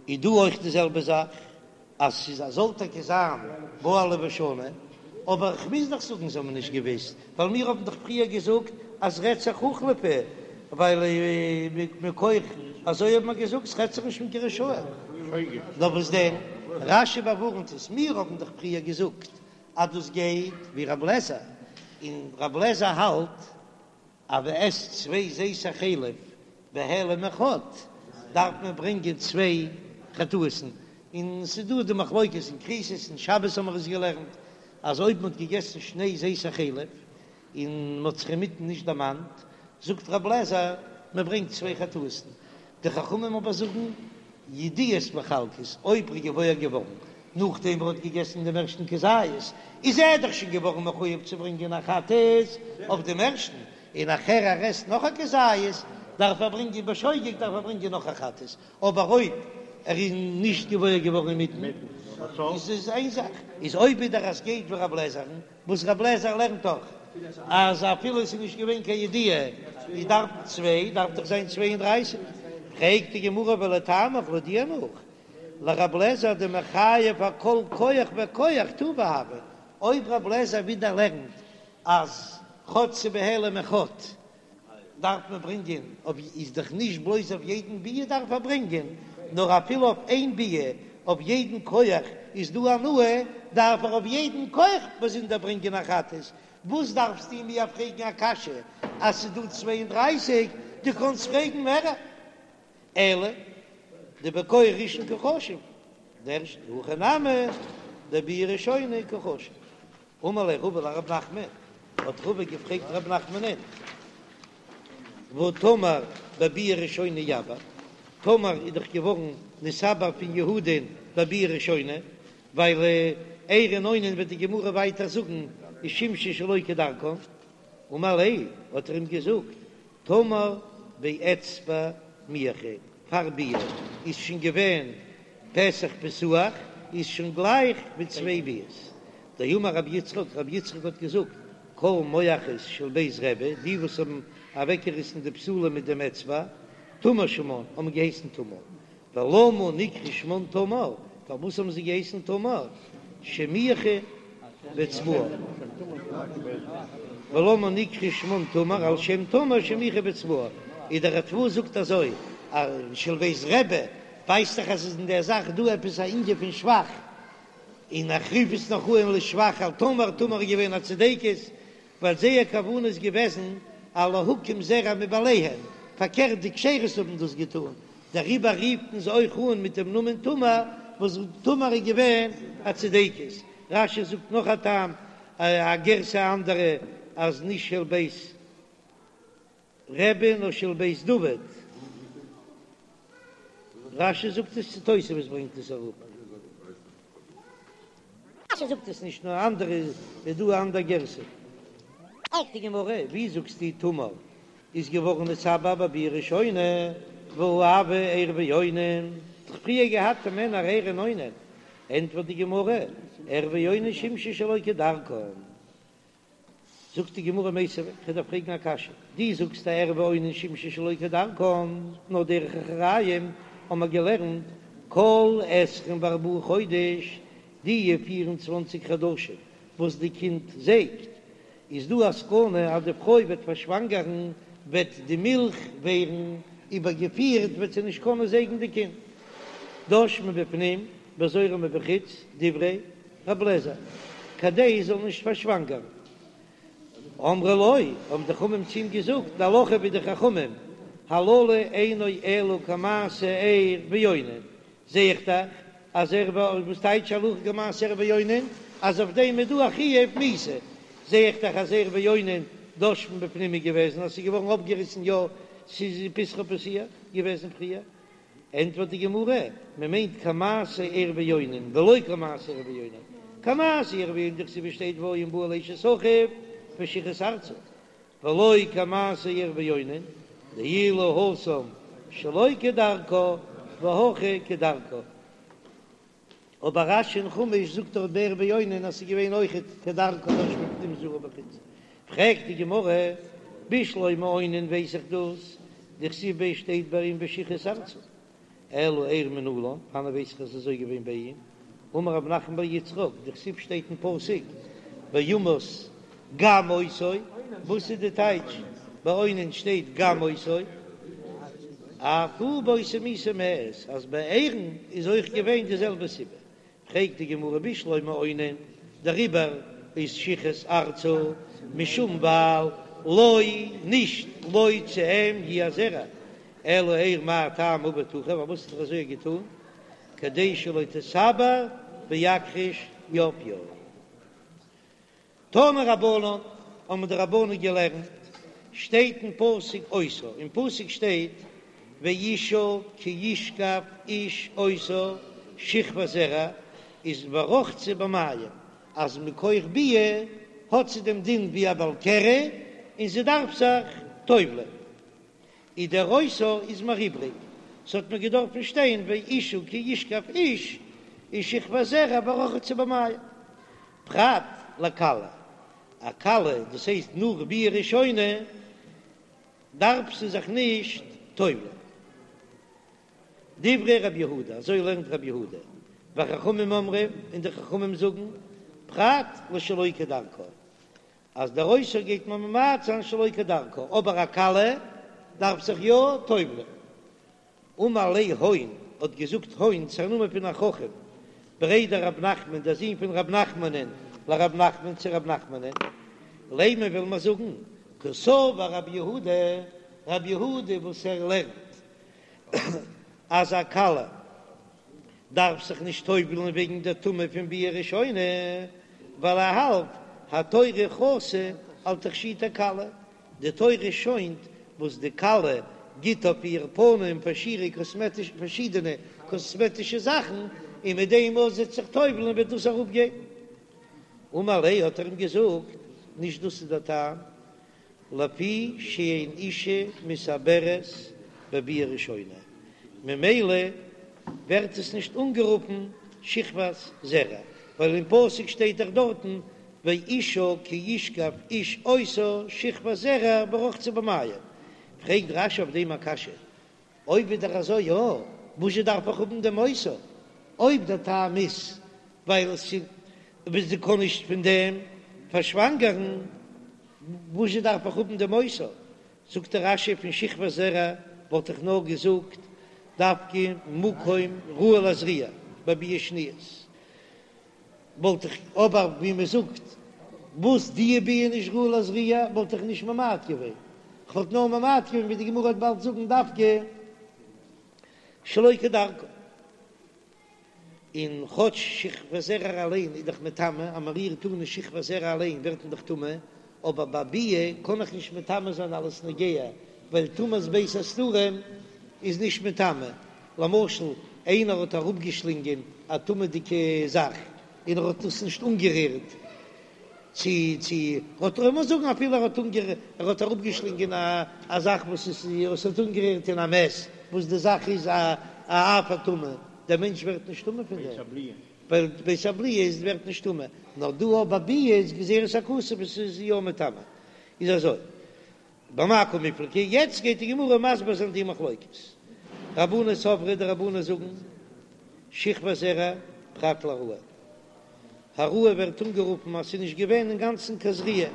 איז דא אויך די זעלבע זאך אז ס'איז א זאל טאקע זיין בעלה ושנה, אבער כ'מוז דאך זאגן זיי האבן נישט געוויסט, ווייל מיר האבן דאך פריער געזאגט אז רעדט זיך הוחלפה, ווייל מכח אזוי האט מען געזאגט ס'רעדט זיך נישט פון קיין רשעים. נאר וואס דען, רש"י באווארנט עס, מיר האבן דאך פריער געזאגט אז דאס גייט ווי רב לעזער, און רב לעזער האלט אז מען עסט צוויי זיתי חלב בהעלם אחד דארף מען ברענגען צוויי חטאת'ן, און ס'איז דא די מחלוקת אין כריתות אין שבת האבן מיר עס געלערנט אז אויב מען האט געגעסן שני זיתי חלב און מען האט זיך אינמיטן נישט דערמאנט, זאגט רב לעזער מען ברענגט צוויי חטאת'ן, די חכמים אבער זאגן ידיעות מחלקות, אויב ער איז געוואויר געווארן נאכדעם ער האט געגעסן דעם ערשטן כזית, איז ער דאך שוין געווארן מחויב צו ברענגען א חטאת אויף דעם ערשטן, און נאכער ער עסט נאך א כזית, דארף ער ברענגען בשוגג דארף ער ברענגען נאך א חטאת, אבער אויב ער איז נישט געוואויר געווארן אינמיטן, איז עס איין זאך, איז אויב ווידער אז גייט ווי רב לעזער'ן, וואס רב לעזער לערנט דאך אז אפילו עס איז נישט געווען קיין ידיעה איז דארף צוויי, דארף דאך זיין צוויי און דרייסיג, פרעגט די גמרא ולטעמיך לויט דיר נאך, לרב לעזער דמחייב אכל כח וכח טובא הוי, אויב רב לעזער ווידער לערנט אז כאטש ס'בהעלם אחד דארף מען ברענגען אויף איז דאך נישט בלויז אויף יעדן ביאה דארף ער ברענגען, נאר אפילו אויף איין ביאה אויף יעדן כח איז דא הנאה, דארף ער אויף יעדן כח באזונדער ברענגען א חטאת, וואס דארפסטו מיר פרעגן א קשיא אז ס'איז דא 32, דו קאנסט פרעגן מערער. אלא דבכח ראשון קא חשיב, דער ערשטע הכא נמי דביאה ראשונה קא חשיב. אמר ליה רבא לרב נחמן, האט רבא געפרעגט רב נחמנען, והא תמר בביאה ראשונה איעבר, תמר איז דאך געווארן נתעבר פון יהודה'ן בביאה ראשונה, ווייל ער און אונן וועט די גמרא ווייטער זאגן איז שימשו שלא כדרכן, אמר ליה האט ער אים געזאגט, תמר באצבע מיעכה, פאר ביאה איז שוין געווען פתח פתוח, איז שוין גלייך ווי צוויי ביאות. דאמר רבי יצחק, רבי יצחק האט געזאגט, כל מועכות של בית רבי, די וואס האבן אוועקגעריסן די בתולה מיט דעם אצבע, תמר שמן, האבן געהייסן תמר. ולמה נקרא שמן תמר, פארוואס האבן זיי געהייסן תמר? שמיחו. באצבעה. ולמה נקרא שמן תמר על שם תמר שמיחה באצבעה, איז דער ריטב"א זאגט אזוי אז של בית רבי ווייזט דאך אז ס'איז אין דער זאך דא עפעס א ענין פון שבח, און איך רוף עס נאך אן לשבח על תמר, תמר איז געווען א צדקת, ווייל זייער כוונה איז געוועזן א להקים זרע מבעליהן, פארקערט די כשרות האבן דאס געטאן, דעריבער רופט מען זיי אויך אן מיט דעם נאמען תמר, וואס תמר איז געווען א צדקת. רש"י זאגט נאך א טעם, א גירסא אנדערע, אז נישט של בית רבי נאר של בית דוד. רש"י זאגט עס צו תוספות ברענגט עס אראפ. רש"י זאגט עס נישט נאר אנדערע איז דא א אנדער גירסא. פרעגט די גמרא, ווי זאגסטו תמר איז געווארן נתעבר בביאה ראשונה, והא הוו ער ואונן, דאך פריער געהאט מענער ער און אונן, ענטפערט די גמרא, ער ואונן שימשו שלא כדרכן. זאגט די גמרא מיתיבי, כ'וועל דיר פרעגן א קשיא, דו זאגסט אז ער ואונן שימשו שלא כדרכן, נאר דרך אחוריים האבן מיר געלערנט כל עשרים וארבעה חודש, די פיר און צוואנציג חדשים וואס די קינד זייגט, איז דא א סכנה אז די פרוי וועט פארשוואנגערן, וועט די מילך ווערן איבערגעפירט, וועט זי נישט קענען זייגן די קינד. דש מבפנים וזורה מבחוץ, דברי רב לעזער, כדי זי זאל נישט פארשוואנגערן. אמרו לו, האבן די חכמים צו אים געזאגט, די הלכה ווי די חכמים, הללו אינו אלא כמעשה ער ואונן, זע איך דאך אז ער וואס טייטש הלכה כמעשה ער ואונן, אז אויף דעם איז דא א חיוב מיתה, זע איך דאך אז ער ואונן דש מבפנים איז געוועזן אז ס'איז געווארן אפגעריסן יא ס'איז פתחה פתוח געוועזן פריער. ענטפערט די גמרא, מען מיינט כמעשה ער ואונן ולא כמעשה ער ואונן, כמעשה ער ואונן דכתיב שטייט והיה אם בא אל אשת אחיו ושחת ארצה, ולא כמעשה ער ואונן דאילו התם שלא כדרכה והכא כדרכה. אבער רש"י אין חומש זאגט דארט ביי ער ואונן אז ס'איז געווען אויכעט כדרכה דש מבפנים זורה מבחוץ, פרעגט די גמרא, בשלמא אונן ווייס איך דאס, דכתיב ביה שטייט ביי אים ושחת ארצה, אלא ער מנלן, וואנען ווייס איך אז ס'איז אזוי געווען ביי אים, אמר רב נחמן בר יצחק, דכתיב שטייט אין פסוק וימת גם אותו, וואס איז די טייטש ביי אונן שטייט גם אותו? אף הוא באותה מיתה מת, אז ביי ער'ן איז אויך געווען די זעלבע סיבה, פרעגט די גמרא בשלמא אונן, דעריבער איז שחת ארצה משום ווייל לא נישט לו צו אים יהיה הזרע, אלא ער מאי טעמא עבד הכי, פארוואס האט ער אזוי געטון, כדי שלא תתעבר ויקריש יפיה. תנו רבנן, האבן די רבנן געלערנט, שטייט אין פסוק אותה, אין פסוק שטייט ואשה כי ישכב איש אותה שכבת זרע, איז ורחצה במים, אז מכח ביאה האט זי דעם דין ווי א בעל קרי און זי דארף זיך טובל'ען. איז דער אותה איז מיר איבריג, ס'האט מיר געדארפן שטיין ואשה כי ישכב איש איז שכבת זרע ורחצה במים. פרט לכלה, א כלה דאס הייסט נאך ביאה ראשונה דארף זי זיך נישט טובל'ען. דברי רבי יהודה, אזוי לערנט רבי יהודה, וחכמים אומרים, און די חכמים זאגן, פרט לשלא כדרכה, אז דער אותה גייט מען ממעט זיין שלא כדרכה, אבער א כלה דארף זיך יא טובל'ען. אמר ליה הון, האט געזאגט הון, ס'איז א נאמען פון א חכם, בריה דרב נחמן, דער זון פון רב נחמנ'ן, לרב נחמן צו רב נחמנ'ן, לימא וויל מען זאגן, קסבר רבי יהודה, רבי יהודה וואס ער לערנט אז א כלה דארף זיך נישט טובל'ן וועגן דער טומאה פון ביאה ראשונה, ווייל ער האלט התורה חסה על תכשיטי כלה, די תורה שוינט וואס די כלה גיט אויף איר פנים פארשידענע קאסמעטישע זאכן, און מיט דעם וואס זי וועט זיך טובל'ן וועט דאס אראפגיין. אמר ליה האט ער אים געזאגט, נישט דאס איז דער טעם, לפי שאין אישה מתעברת בביאה ראשונה, ממילא ווערט עס נישט אנגערופן שכבת זרע, ווייל אין פסוק שטייט דאך דארטן ואשה כי ישכב איש אותה שכבת זרע ורחצה במים, פרעגט רש"י אויף דעם א קשיא, אויב איז דאך אזוי יא, וואזשע דארף איך האבן דעם אותה? אויב דער טעם איז ווייל עס איז. וואס זי קען נישט פון דעם פארשוואנגערן, וואזשע דארף איך האבן דעם אותה? זאגט דער רש"י פון שכבת זרע וואלט איך נאר געזאגט דווקא מקום ראוי לזריעה ביי ביאה שנית וואלט איך אבער ווי מען זאגט וואס די ביאה נישט ראוי לזריעה וואלט איך נישט ממעט געווען, כ'וואלט נאר ממעט געווען ווי די גמרא וועט באלד זאגן דווקא שלא כדרכה. און כאטש שכבת זרע אליין איז דאך מטמא, אז מען רירט אן אין שכבת זרע אליין ווערט מען דאך טמא, אבער ביי ביאה קען איך נישט מטמא זיין אלס נוגע, ווייל טומאת בית הסתרים איז נישט מטמא. למשל, איינער האט אראפגעשלינגען א טמא'דיגע זאך און ער האט עס נישט אנגערירט, צו צו האט לאמיר זאגן אפילו ער האט אנגער ער האט אראפגעשלינגען א א זאך וואס איז וואס האט אנגערירט אין א מת וואס די זאך איז א א אב הטומאה דער מענטש ווערט נישט טמא פון דעם ווייל בית הבליעה איז ווערט נישט טמא נאר דא אבער ביאה איז גזירת הכתוב עס איז יא מטמא איז אזוי במאי קמיפלגי, יעצט גייט די גמרא מסביר זיין די מחלוקת. רבנן סברי, די רבנן זאגן, שכבת זרע פרט להעראה. העראה ווערט אנגערופן אז ס'איז נישט געווען אינגאנצן קיין זריעה,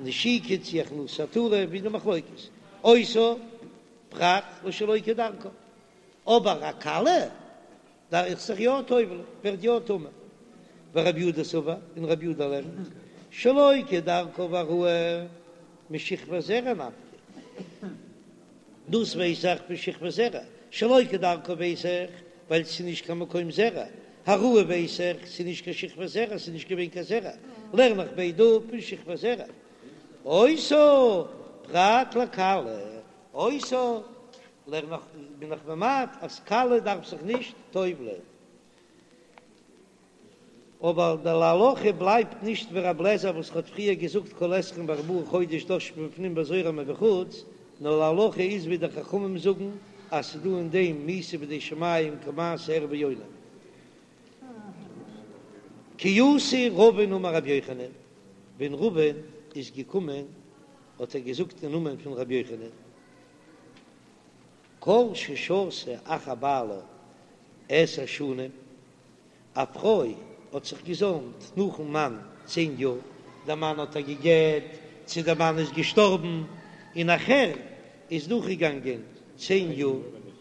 נשיקה צי הכנסת עטרה, ווי די מחלוקת. אותה פרט לשלא כדרכה. אבער א כלה דארף זיך יא טובל'ן, ווערט יא טמא. ורבי יהודה סבר, און רבי יהודה לערנט, שלא כדרכה והעראה משכבת זרע נפקא. דאס ווייס איך פון שכבת זרע, שלא כדרכה ווייס איך ווייל ס'איז נישט קיין מקום זרע, העראה ווייס איך ס'איז נישט קיין שכבת זרע, ס'איז נישט געווען קיין זרע, לערן איך ביידע אפ פון שכבת זרע. אותה פרט לכלה, אותה לערן איך בין איך ממעט אז כלה דארף זיך נישט טובל'ען. אבער די להלכה בלייבט נישט ווי רב לעזער וואס האט פריער געזאגט כל עשרים וארבעה חודש דש מבפנים וזורה מבחוץ, נאר להלכה איז ווי די חכמים זאגן אז ס'איז דא אין דעם מיתה בידי שמים כמעשה ער ויונה. כי אתא רבין אמר רבי יוחנן, ווען רבין איז געקומען האט ער געזאגט אין נאמען פון רבי יוחנן, כל ששהתה אחר בעלה עשר שנים, א פרוי האט זיך געזוימט נאכן מאן צען יאר, דער מאן האט איר גע'גט, צו דער מאן איז געשטארבן, און נאכער איז דורכגעגאנגען צען יאר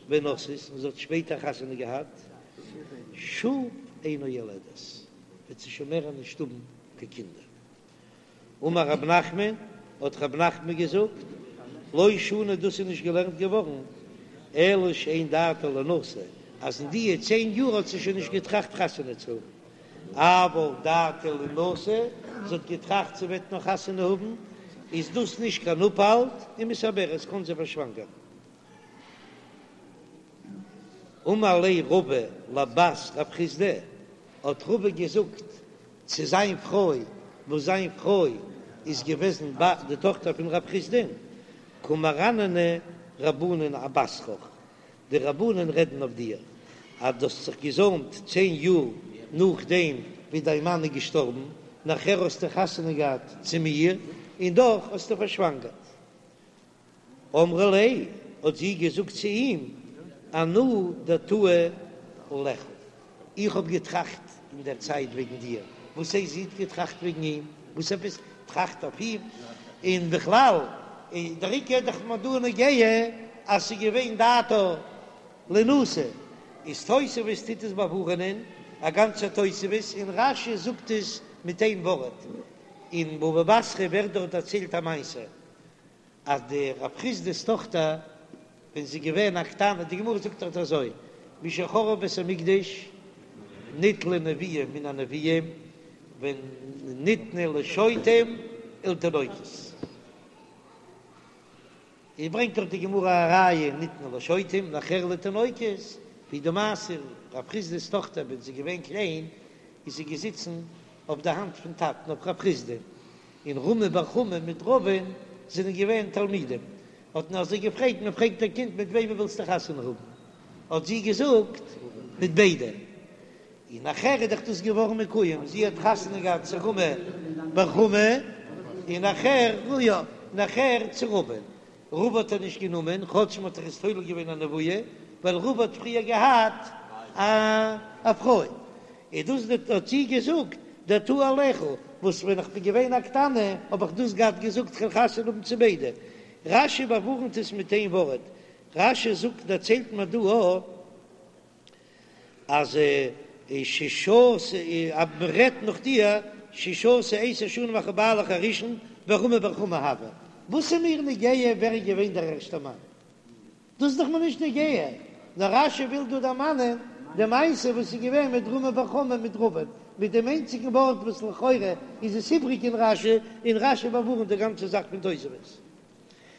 ונשאת, און זי האט שפעטער חתונה געהאט, שוב אינה יולדת, וועט זי שוין מער נישט האבן קיין קינדער. אמר רב נחמן, האט רב נחמן געזאגט, לא שנו דאס איז נישט געלערנט געווארן, אלא שאין דעתה לינשא, אז אין דיע צען יאר האט זי שוין נישט געטראכט חתונה צו האבן, אבל דעתה לינשא, זי האט געטראכט זי וועט נאך חתונה האבן, איז דאס נישט קיין אפהאלט, ומתעברת קען זי פארשוואנגערן. אמר ליה רבא לבת רב חסדא, האט רבא געזאגט צו זיין פרוי, וואס זיין פרוי איז געוועזן די טאכטער פון רב חסדא'ן, קא מרנני רבנן אבתרך, די רבנן רעדן אויף דיר, אז דו האסט זיך געזוימט צען יאר נאכדעם ווי דיין מאן איז געשטארבן, נאכער האסטו חתונה געהאט צו מיר, און דאך האסטו פארשוואנגערט. אמרה ליה, האט זי געזאגט צו אים, אנא דעתאי עליך, איך האב געטראכט אין דער צייט וועגן דיר, וואס הייסט זי האט געטראכט וועגן אים? וואס עפעס טראכט אויף אים? און בכלל, דער עיקר איז דאך מיר דא נוגע אז ס'איז געווען דעתה לינשא, איז תוספות טוט עס באווארענען, א גאנצע תוספות, און רש"י זאגט עס מיט איין ווארט, אין בבא בתרא ווערט דארט דערציילט א מעשה, אז די רב חסדא'ס טאכטער ווען זי איז געווען א קטנה, די גמרא זאגט דארט אזוי, משחרב בית המקדש ניטלה נבואה מן הנביאים וניתנה לשוטים ולתינוקות, איז ברענגט דאך די גמרא א ראיה ניתנה לשוטים נאכער לתינוקות, ווי די מעשה רב חסדא'ס טאכטער ווען זי איז געווען קליין איז זי געזיצן אויף די האנט פון טאטן אויף רב חסדא, און רמי בר חמא מיט רבא'ן זענען געווען תלמידים, האט מען אזוי געפרעגט, מען פרעגט א קינד מיט וועמען ווילסטו חתונה האבן, האט זי געזאגט מיט ביידע, און נאכער איז דאך דאס געווארן מקוים, זי האט חתונה געהאט צו רמי בר חמא, און נאכער, יא, נאכער צו רבא'ן, רבא האט ער נישט גענומען, כאטש מען האט דאך עס תולה געווען א נבואה, ווייל רבא האט פריער געהאט א פרוי, איז דאס די האט זי געזאגט. דעתאי עלייכו, וואס ווען איך בין געווען א קטנה האב איך דאס געהאט געזאגט כ'וועל חתונה האבן צו ביידע. רש"י באווארנט עס מיט איין ווארט, רש"י זאגט דערציילט מיר דא א אז ששהתה אז מ'רעדט נאך דיר ששהתה עשר שנים אחר בעלך הראשון ורמי בר חמא הוה, וואס איז מיר נוגע ווער איז געווען דער ערשטער מאן? דאס איז דאך מיר נישט נוגע, נאר רש"י וויל דא דערמאנען די מעשה וואס איז געווען מיט רמי בר חמא מיט רבין, מיט דעם איינציגן ווארט וואס לכאורה איז עס איבריג אין רש"י, און רש"י באווארנט די גאנצע זאך פון תוספות.